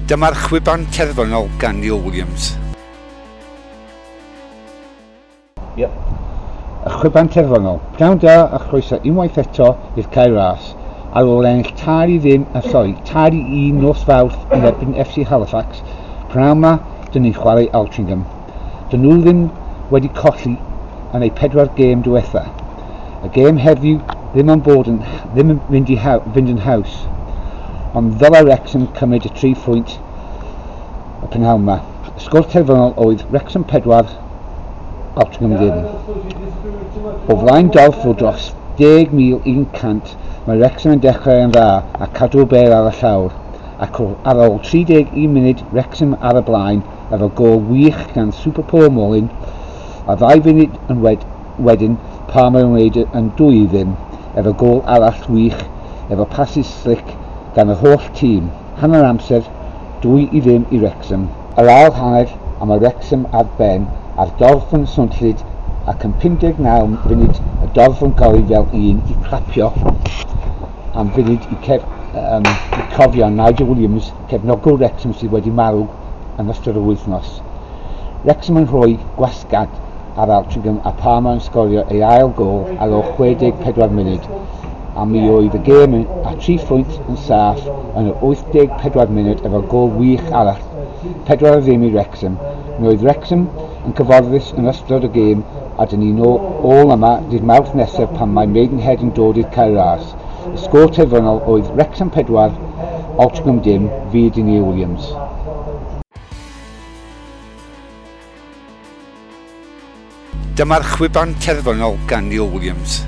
Dyma'r chwiban terfynol gan Neil Williams. Yep. Y chwiban terfynol. Pnawn da a chroeso unwaith eto i'r Cae Ras. Ar ôl ennill 3-0, sori, 3-1 nos Fawrth yn erbyn FC Halifax, pnawn 'ma dyn ni'n chwarae Altrincham. Dyn nhw ddim wedi colli yn eu 4 gêm diwetha. Y gêm heddiw ddim yn bod yn, ddim yn mynd i fynd yn haws, ond ddylai Wrexham cymryd y 3 phwynt y prynhawn 'ma. Y sgôr terfynol oedd Wrexham 4, Altrincham ddim. O flaen dorf o dros 10,100, mae Wrexham yn dechrau yn dda a cadw'r bêl ar y llawr, ac ar ôl 31 munud Wrexham ar y blaen efo gôl wych gan Super Paul Mullin, a 2 funud yn wedyn Palmer yn wneud yn 2-0 efo gôl arall wych efo passes slick gan yr holl tîm. Hanner amser, 2-0 i Wrexham. Yr ail hanner, a mae Wrexham ar ben a'r dorf yn swnllyd, ac yn 59 funud y dorf yn gori fel un i clapio am funud i cofio Nigel Williams, cefnogwr Wrexham sydd wedi marw yn ystod yr wythnos. Wrexham yn rhoi gwasgad ar Altrincham a Palmer yn sgorio ei ail gôl ar ôl 64 munud, a mi oedd y gêm a 3 phwynt yn saff yn yr 84 munud efo gôl wych arall, 4-0 i Wrexham. Mi oedd Wrexham yn cyfforddus yn ystod y gêm, a dyn ni'n ôl yma dydd Mawrth nesaf pan mae Maidenhead yn dod i'r Cae Ras. Y sgôr terfynol oedd Wrexham 4, Altrincham dim. Fi ydy Neil Williams. Dyma'r chwiban terfynol gan Neil Williams.